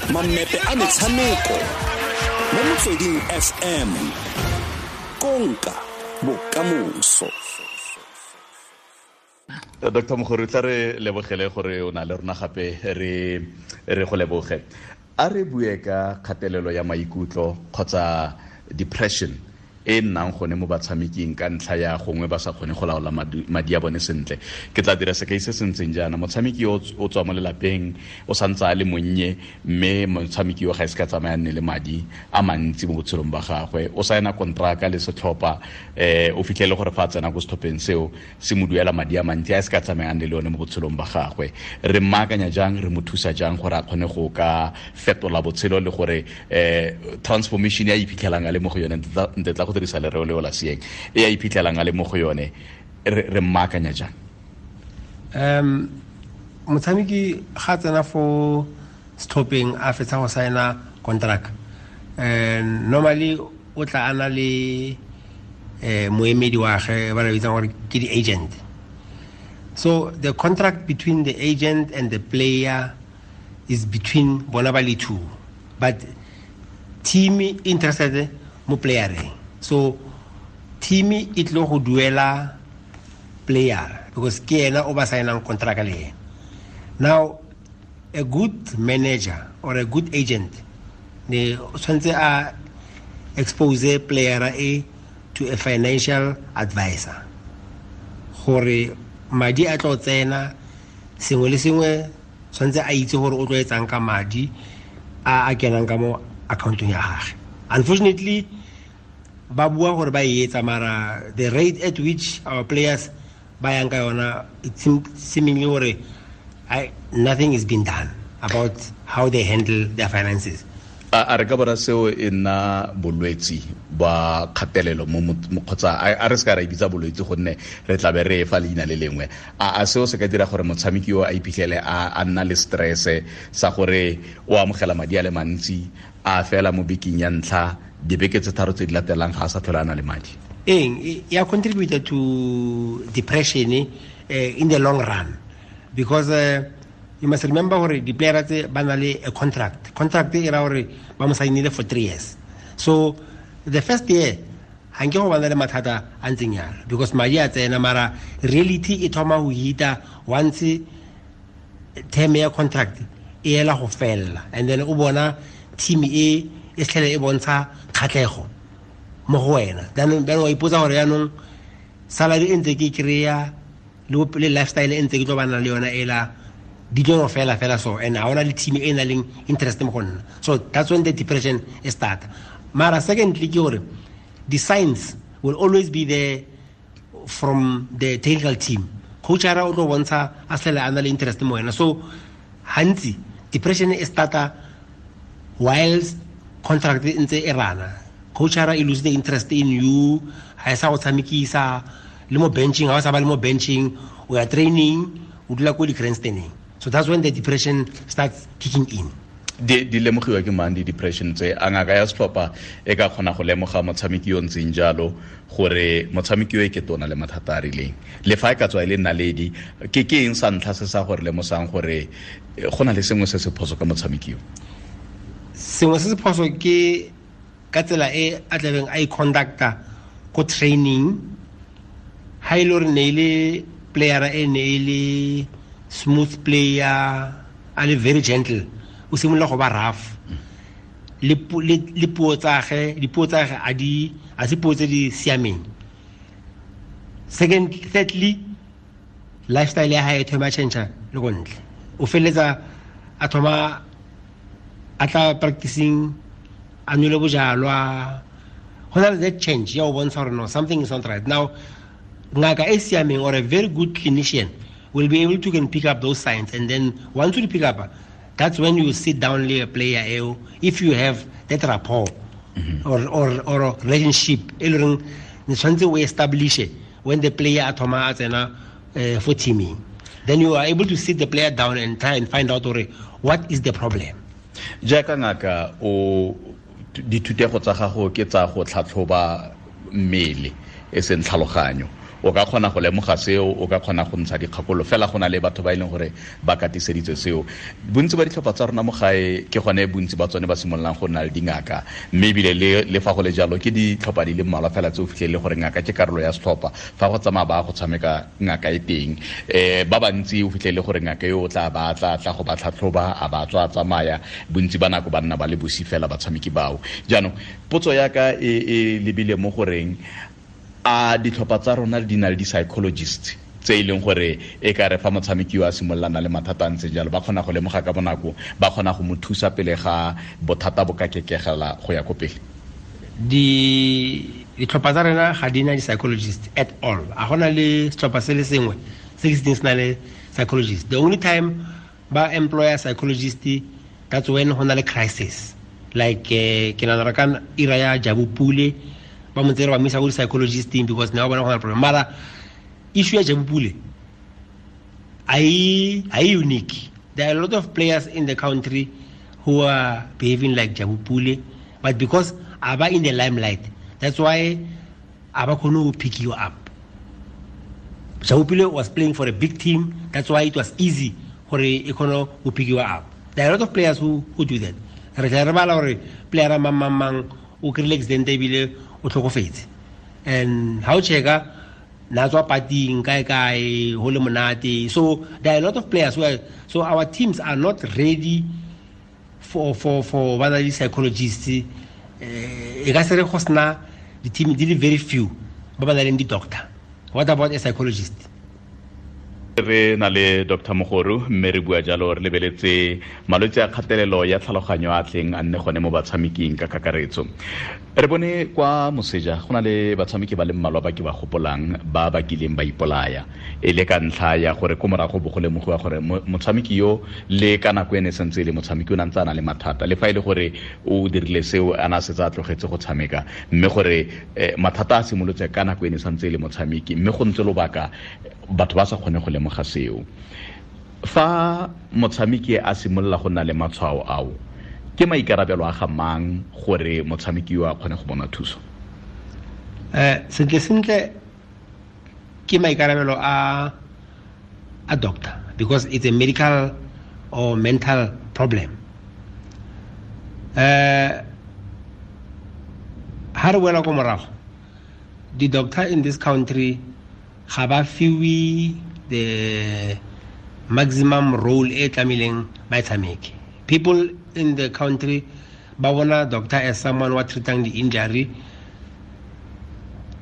Mammepe a metshameko mo Motsweding FM, konka bokamoso. Dr. Mogori, tla re lebogele gore o na le rona gape, re go leboge. A re bue ka kgatelelo ya maikutlo kgotsa depression e nnang gone mo batshameking ka ntlha ya gongwe ba sa kgone go laola madi a bone sentle. Ke tla dira sekai se se ntseng jaana: motshameki o tswa mo lelapeng, o santse a le monnye, mme motshameki yo ga e se ka tsamaya nne le madi a mantsi mo botshelong ba gagwe. O saena kontraka le setlhopha, o fitlhele gore fa a tsena ko setlhopheng seo se mo duela madi a mantsi a e se ka tsamayang le one mo botshelong ba gagwe. Re mmaakanya jang, re mo thusa jang gore a kgone go ka fetola botshelo le gore transformation ya iphitlhelang a le mo go yone, nte tla go dirisa lereo leo la seeng, e ya iphitlhelang a le mo go yone, re mmaakanya jang? Motshameki ga tsena fo setlhopheng a fetsa go saena contract, normally o tla ana le moemedi wa gagwe ba re bitsang gore ke di-agent. So the contract between the agent and the player is between bona ba le two, but team interested mo playereng. So team e tlo go duela player because ke ena o ba saenang contract le ena. Now a good manager or a good agent ne tshwanetse a expose player e to a financial advisor gore madi a tlo tsena, sengwe le sengwe tshwanetse a itse gore o tlo etsang ka madi a kenang ka mo accountong ya gagwe. Unfortunately, ba bua gore ba e etsa, mara the rate at which our players ba yang ka yona, it seemingly gore nothing is being done about how they handle their finances. A re ka bona seo e nna bolwetsi ba kgatelelo mo kgotsa a re se ka ra e bitsa bolwetsi gonne re tla be re e fa leina le lengwe? A seo se ka dira gore motshameki yo a iphitlhele a nna le stress sa gore o amogela madi a le mantsi, a fela mo bekeng ya ntlha, dibeke tse tharo tse di latelang ga a sa tlhole a na le madi? Eng ya contribute to depression in the long run, because you must remember gore di-player tse ba na le a contract. Contract e ra gore ba mo sainile for 3 years. So the first year ga nke go bana le mathata a ntseng yalo because madi a tsena, mara reality e thoma go hita once term ya contract e ela go fella, and then o bona team e e tlhele e bontsha kgatlhego mo go wena. Then wa ipotsa gore yaanong salary e ntse ke e kry-a le lifestyle e ntse ke tlo bana le yona ela di tlo fela fela, so and ha ona le team e na leng interest mo go nna. So that's when the depression e start. Mara secondly ke gore the signs will always be there from the technical team. Coach ara o tlo bontsha a sele a na le interest mo wena. So hantsi depression e starta whilst contract e ntse e rana. Coach ara e lose the interest in you, ha e sa go tshamekisa le mo benching, ha o sa ba le mo benching, o ya training, o dula ko di-grandstanding. So that's when the depression starts kicking in. Di lemogiwa ke mang di-depression tse? A ngaka ya setlhopha e ka kgona go lemoga motshameki yo ntseng jalo gore motshameki yo e ke tona le mathata a rileng, le fa e ka tswa e le naledi? Ke eng sa ntlha se sa gore lemosang gore go na le sengwe se se phoso ka motshameki yo? Sengwe se se phoso ke ka tsela e a tlabeng a i-conducta ko training. Ha e le gore ne e le player e ne e le smooth player, a le very gentle, o simolola go ba rough. Le puo tsa gagwe, dipuo tsa gagwe a di, a se puo tse di siameng. Second, thirdly, lifestyle ya hae e thoma change le go ntle. O feleletsa a thoma a tla practicing, a nwele bojalwa. Go na le that change ya go bontsha gore no, something is not right. Now, ngaka e siameng or a very good clinician will be able to can pick up those signs, and then once you pick up, that's when you sit down le player eo, if you have that rapport or relationship e le reng ne tshwanetse o establish when the player a thoma a tsena for teaming, then you are able to sit the player down and try and find out gore what is the problem. Jaaka ngaka, o dithutego tsa gago ke tsa go tlhatlhoba mmele e seng tlhaloganyo. O ka kgona go lemoga seo, o ka kgona go ntsha dikgakolo fela go na le batho ba e leng gore ba katiseditswe seo. Bontsi ba ditlhopha tsa rona mo gae ke gone bontsi ba tsone ba simololang go nna le dingaka, mme ebile le fa go le jalo ke ditlhopha di le mmalwa fela tse o fitlhelele gore ngaka ke karolo ya setlhopha. Fa go tsamaya ba go tshameka ngaka e teng, ba bantsi o fitlhelele gore ngaka yo o tla ba tla tla go ba tlhatlhoba, a ba tswa tsamaya, bontsi ba nako ba nna ba le bosi fela batshameki bao. Jaanong potso ya ka e lebile mo goreng a ditlhopha tsa rona di na le di-psychologist tse e leng gore e ka re fa motshameki yo a simololana le mathata a ntse jalo ba kgona go lemoga ka bonako, ba kgona go mo thusa pele ga bothata bo ka kekegela go ya ko pele? Ditlhopha tsa rena ga di na di-psychologist at all. A gona le setlhopha se le sengwe se ke se teng se na le psychologist. The only time ba employer psychologist, that's when go na le crisis. Like ke nagana ka ira ya Jabu Pule, ba mo tsere ba mo isa ko di-psychologisting because ne ba bona go na le problem. Mara issue ya Jabu Pule a e unique. There are a lot of players in the country who are behaving like Jabu Pule, but because a ba in the limelight, that's why a ba kgone go pick you up. Jabu Pule was playing for a big team, that's why it was easy gore e kgone go pick you up. There are a lot of players who do that. Re tla re bala gore player mang mang mang o kry-ile accident ebile o tlhokofetse, and ha o checka na tswa pating kae kae ho le monate. So there are a lot of players who are, so our teams are not ready for ba na le psychologists. E ka se re go sena di-team di le very few ba ba nang le di-doctor. What about a psychologist? Re na le Dr. Mogoru, mme re bua jalo re lebeletse malwetse a kgatelelo ya tlhaloganyo a tleng a nne gone mo batshameking ka kakaretso. Re bone kwa moseja go na le batshameki ba le mmalwa ba ke ba gopolang ba ba kileng ba ipolaya e le ka ntlha ya gore ko morago bo go lemogiwa gore motshameki yo le ka nako ene sentse e le motshameki o ne ntse a na le mathata, le fa e le gore o dirile seo a na setse a tlogetse go tshameka, mme gore mathata a simolotse ka nako ene santse e le motshameki, mme go ntse lobaka batho ba sa kgone go lemoga seo. Fa motshameki a simolola go nna le matshwao ao, ke maikarabelo a ga mang gore motshameki yo a kgone go bona thuso? Sentle sentle ke maikarabelo a doctor, because it's a medical or mental problem. Ha re boela ko morago, the doctor in this country ga ba fiwe the maximum role e tlamehileng ba e tshameke. People in the country ba bona doctor as someone wa treatang the injury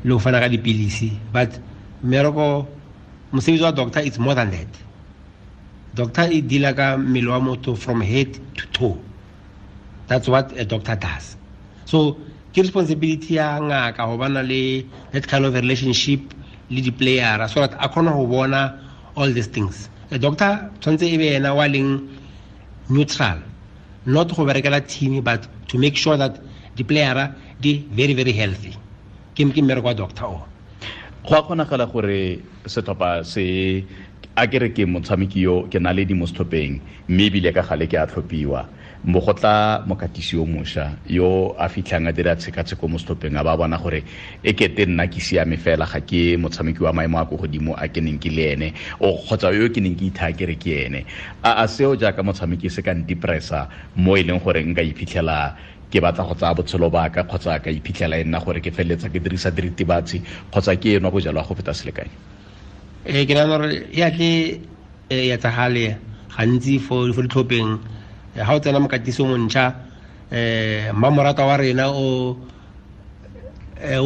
le go fana ka dipilisi, but mmereko mosebetsi wa doctor is more than that. Doctor e deala ka mmele wa motho from head to toe. That's what a doctor does. So ke responsibility ya ngaka go bana le that kind of relationship le di-player so that a kgone go bona all these things. A doctor tshwanetse e be ena wa leng neutral, not go berekela team, but to make sure that the player di very very healthy. Ke mmereko wa doctor o. Go a kgonagala gore setlhopha se a ke re ke motshameki yo ke na le di mo setlhopheng, mme ebile ka gale ke a tlhophiwa, mo go tla mokatisi yo mošwa yo a fitlhang a dira tshekatsheko mo setlhopheng, a ba bona gore e kete nna ke siame fela, ga ke motshameki wa maemo a ko godimo a ke neng ke le ene, o kgotsa yo ke neng ke ithaya ke re ke ene. A seo jaaka motshameki se ka ndepressa mo e leng gore nka iphitlhela ke batla go tsaya botshelo ba ka, kgotsa ka iphitlhela e nna gore ke feleletsa ke dirisa diritibatsi kgotsa ke enwa bojalwa go feta selekanyo? Ke nagana gore ya tle e etsagale gantsi fo ditlhopheng. Ha o tsena mokatisi o montšha, mmamorata wa rena o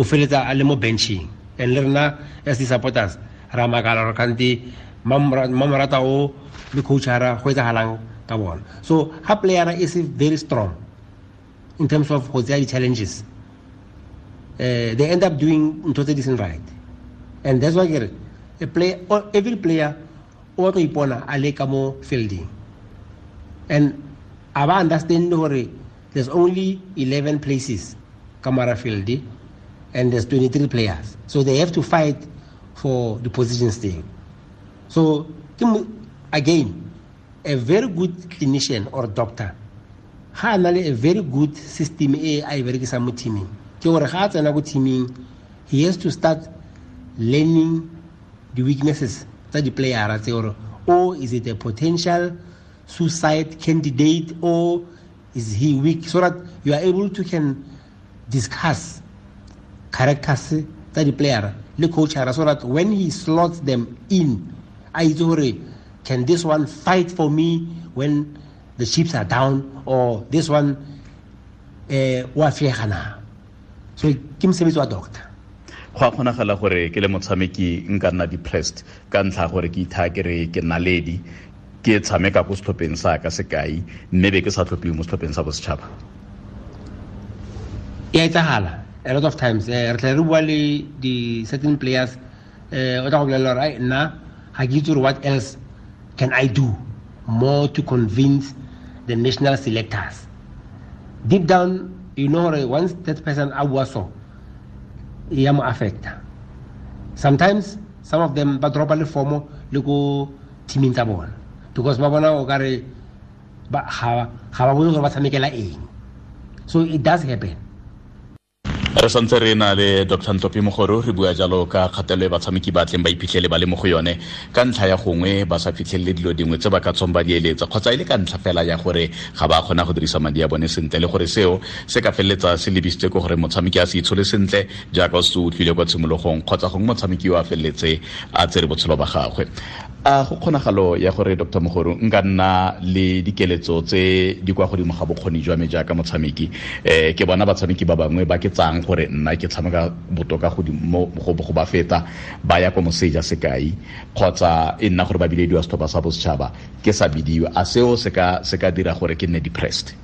feletsa a le mo benching, and le rena as di-supporters ra makala gore kante mmamorata o le coachara go etsagalang ka bona. So ha playera e se very strong in terms of go tseya di-challenges, they end up doing ntho tse di seng right. And that's why ke re every player o batla go ipona a le ka mo fielding, and a ba understand gore there's only 11 places ka mara field and there's 23 players, so they have to fight for the positions thing. So again, a very good clinician or doctor ga a na le a very good system e a e berekisang mo teaming, ke gore ga a tsena ko teaming he has to start learning the weaknesses tsa di-playera tse, gore or is it a potential suicide candidate or is he weak, so that you are able to can discuss characters tsa di-playera le coachara, so that when he slots them in, a itse gore can this one fight for me when the chips are down, or this one wa fiega na. So ke mosebetsi wa doctor. Go a kgonagala gore ke le motshameki nka nna depressed ka ntlha gore ke ithaya ke re ke naledi, ke tshameka ko setlhopheng sa ka sekai, mme be ke sa tlhophiwe mo setlhopheng sa bosetšhaba. E a etsagala a lot of times. Re tla re bua le di-certain players, o tla go bolelela gore ai nna ga ke itse gore what else can I do more to convince the national selectors. Deep down, you know gore once that person a bua so, e ya mo affecta. Sometimes some of them ba dropa le formo le ko teaming tsa bona, because ba bona o kare ga ba bone gore ba tshamekela eng. So it does happen. Re santse re na le Dr. Ntlopi Mogoru, re bua jalo ka kgatelelo e batshameki ba tleng ba iphitlhele ba le mo go yone ka ntlha ya gongwe ba sa fitlhelele dilo dingwe tse ba ka tswang ba di eletsa, kgotsa e le ka ntlha fela ya gore ga ba kgona go dirisa madi a bone sentle, le gore seo se ka feleletsa se lebisitse ko gore motshameki a se itshole sentle jaaka o se utlwile kwa tshimologong, kgotsa gongwe motshameki o a feleletse a tsere botshelo ba gagwe. A go kgonagalo ya gore Dr. Mogoru nka nna le dikeletso tse di kwa godimo ga bokgoni jwa me jaaka motshameki, ke bona batshameki ba bangwe ba ke tsang gore nna ke tshameka botoka godimo go ba feta, ba ya ko moseja sekai, kgotsa e nna gore ba bilediwa setlhopha sa bosetšhaba ke sa bidiwa, a seo se ka dira gore ke nne depressed?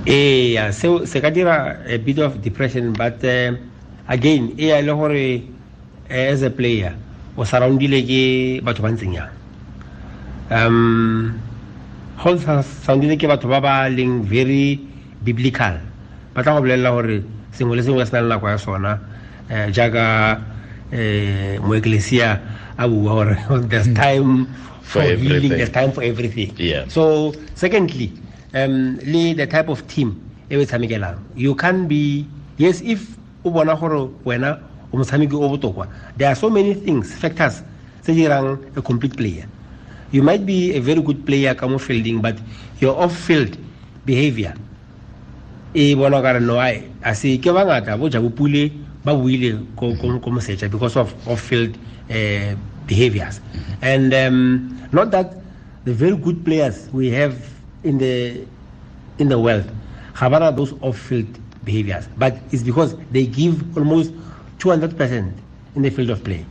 Ee, seo se ka dira a bit of depression, but again e ya le gore as a player o surroundile ke batho ba ntseng yang. Go surroundile ke batho ba ba leng very biblical, ba tla go bolelela gore sengwe le sengwe se na le nako ya sona, jaaka moeklesia a bua gore there's time for healing, there's time for everything. Yeah. So secondly, le the type of team e o tshamekelang, you can be, yes, if o bona gore wena o motshameki o botokwa, there are so many things, factors tse dirang a complete player. You might be a very good player ka mo fielding, but your off-field behavior e bona ka re no ai a se ke bangata bo Jabu Pule ba buile ko moseja because of off-field behaviors. And not that the very good players we have in the world ga bana those off-field behaviors, but it's because they give almost 200% in the field of play.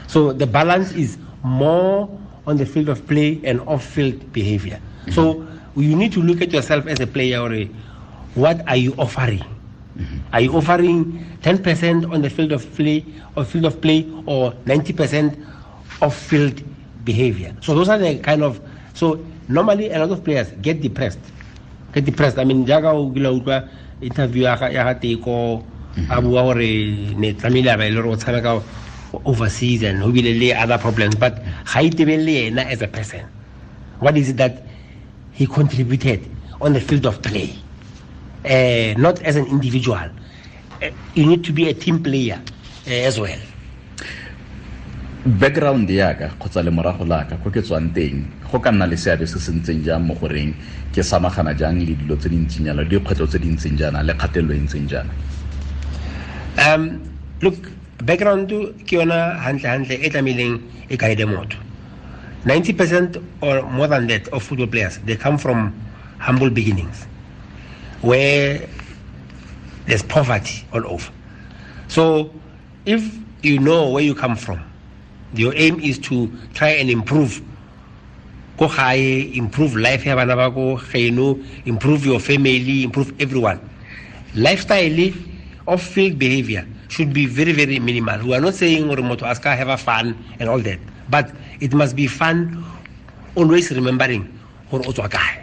So the balance is more on the field of play and off-field behavior. Mm-hmm. So you need to look at yourself as a player. Or what are you offering? Mm-hmm. Are you offering 10% on the field of play or 90% off-field behavior? So those are the kind of, so normally a lot of players get depressed. I mean, jaaka o kile utlwa interview ya ga Teko a bua gore ne tlamehile a ba e le gore o tshameka overseas and ho bile le other problems, but ga itebelele yena as a person. What is it that he contributed on the field of play? Not as an individual. You need to be a team player as well. Background yaka kgotsa le morago laka ko ke tswang teng go ka nna le seabe se se ntseng jang mo goreng ke samagana jang le dilo tse di ntseng jana, le dikgwetlho tse di ntseng jana, le kgatelelo e ntseng jana? Look, background ke yona hantle e tlamehileng e guide motho. 90% or more than that of football players, they come from humble beginnings where there's poverty all over. So if you know where you come from, your aim is to try and improve ko gae, improve life ya bana ba ko geno, improve your family, improve everyone. Lifestyle of field behavior should be very, very minimal. We are not saying gore motho a ska have a fun and all that, but it must be fun, always remembering gore o tswa kae.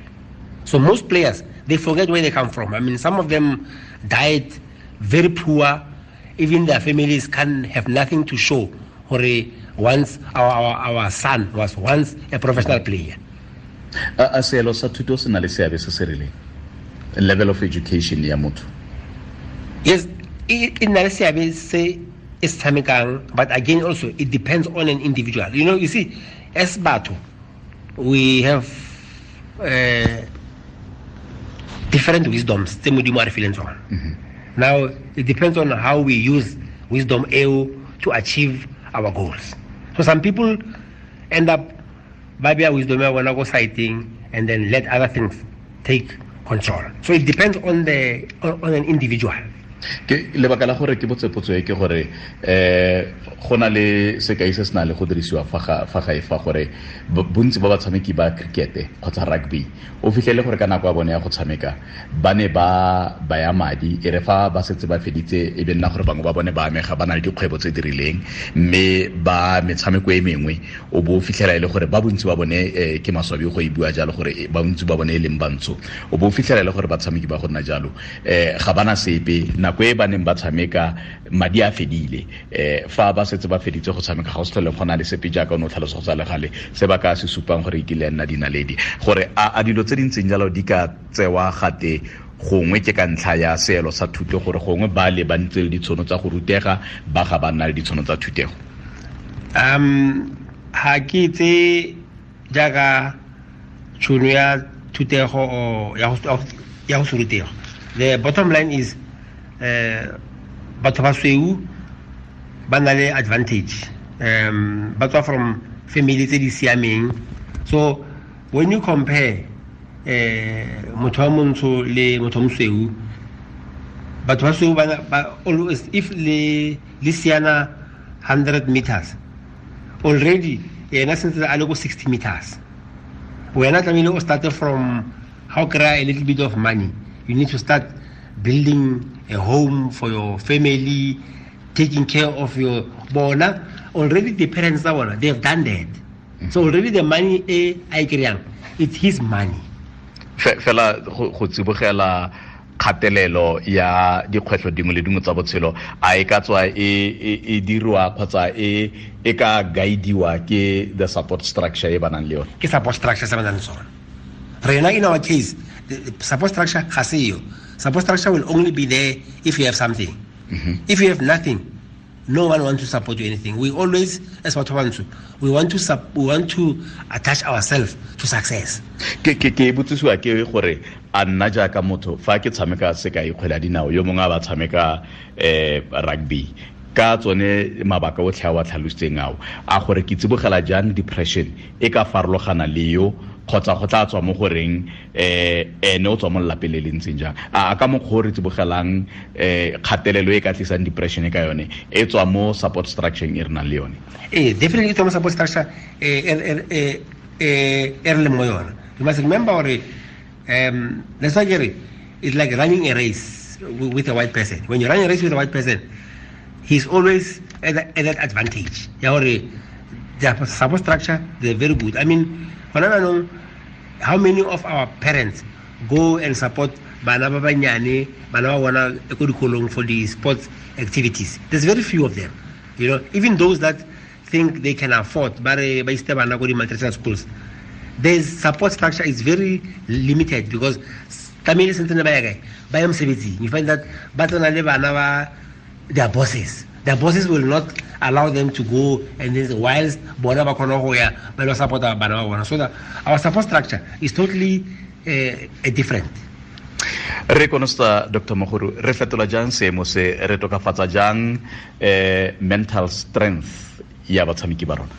So most players, they forget where they come from. I mean, some of them died very poor. Even their families can have nothing to show. Gore once our son was once a professional player. A seelo sa thuto se na le seabe se se rileng? Level of education ya motho. Yes, e na le seabe se e se tshamekang, but again also it depends on an individual. You know, you see, as batho we have different wisdoms tse Modimo a re fileng tsona. Now it depends on how we use wisdom eo to achieve our goals. So some people end up ba bea wisdom ya bona ko siting and then let other things take control. So it depends on the on an individual. Ke lebaka la gore ke botse potso e ke gore go na le sekai se se na le go dirisiwa fa gae fa gore bontsi ba batshameki ba cricket kgotsa rugby o fitlhele gore ka nako ya bone ya go tshameka ba ne ba baya madi, e re fa ba setse ba feditse e be nna gore bangwe ba bone ba amega ba na le dikgwebo tse di rileng, mme ba metshameko e mengwe o bo o fitlhela e le gore ba bontsi ba bone, ke maswabi go e bua jalo gore ba bontsi ba bone e leng bantsho, o bo o fitlhela e le gore batshameki ba go nna jalo ga bana sepe. Nako e ba neng ba tshameka madi a fedile, fa ba setse ba feditse go tshameka ga o se tlhole go na le sepe jaaka o ne o tlhalosa go tsa legale se ba ka se supang gore e kile ya nna dinaledi. Gore a dilo tse di ntseng jalo di ka tsewa gate gongwe ke ka ntlha ya seelo sa thuto, gore gongwe ba le ba ntse le ditshono tsa go rutega, ba ga ba nna le ditshono tsa thutego. Ha ke tse jaaka tšhono ya thutego o ya go se rutego. The bottom line is batho ba sweu ba na le advantage, ba tswa from family tse di siameng. So when you compare motho wa montsho le motho wa mosweu, batho ba sweu ba always, if le siana 100 meters already, yena sentse a le ko 60 meters. Wena tlamehile o start from how kry a little bit of money. You need to start building a home for your family, taking care of your bona. Already the parents are bona, they have done that. So already the money e a kry-ang, it's his money. Fela go tsibogela kgatelelo ya dikgwetlho dingwe le dingwe tsa botshelo, a e ka tswa e dirwa kgotsa e ka guidiwa ke the support structure e ba nang le yone? Ke support structure se ba nang le sone. Rena in our case, the support structure ga se yo. Support structure will only be there if you have something. If you have nothing, no one wants to support you anything. We always, as batho ba bantsho, we want to attach ourselves to success. Ke botsisiwa ke gore a nna jaaka motho fa ke tshameka sekai kgwele ya dinao, yo mongwe a ba tshameka rugby, ka tsone mabaka otlhe a wa tlhalositseng ao, a gore ke tsibogela jang depression e ka farologana le yo, kgotsa go tla tswa mo goreng ene o tswa mo lelapeng le le ntseng jang. A ka mokgwa o re tsibogelang kgatelelo e ka tlisang depression ka yone e tswa mo support structure e re nang le yone? Ee, definitely e tswa mo support structure e re leng mo yone. You must remember gore let's say it's like running a race with a white person. When you run a race with a white person, he's always at that advantage. Ya gore their support structure, they're very good. I mean, how many of our parents go and support bana ba banyane, bana ba bona ko dikolong for the sports activities? There's very few of them. You know, even those that think they can afford, ba re ba iste bana ko di multinational schools, their support structure is very limited because tlamehile sentse ba ya kae, ba ya mosebetsing. You find that ba tsena le bana ba their bosses. Their bosses will not allow them to go, and then whilst bona ba khona go ya ba lo support bana ba bona. So that our support structure is totally different. Re konosta Dr. Mogoru, re fetola jang seemo se, re tokafatsa jang mental strength ya batshameki ba rona?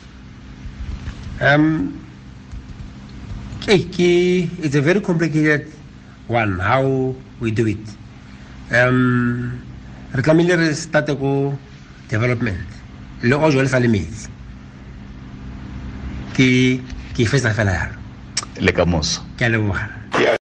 It's a very complicated one how we do it. Re tlamehile re starte ko development le o jwale sa le metsi ke fetsa fela yalo. Le ka moso. Ke a leboga.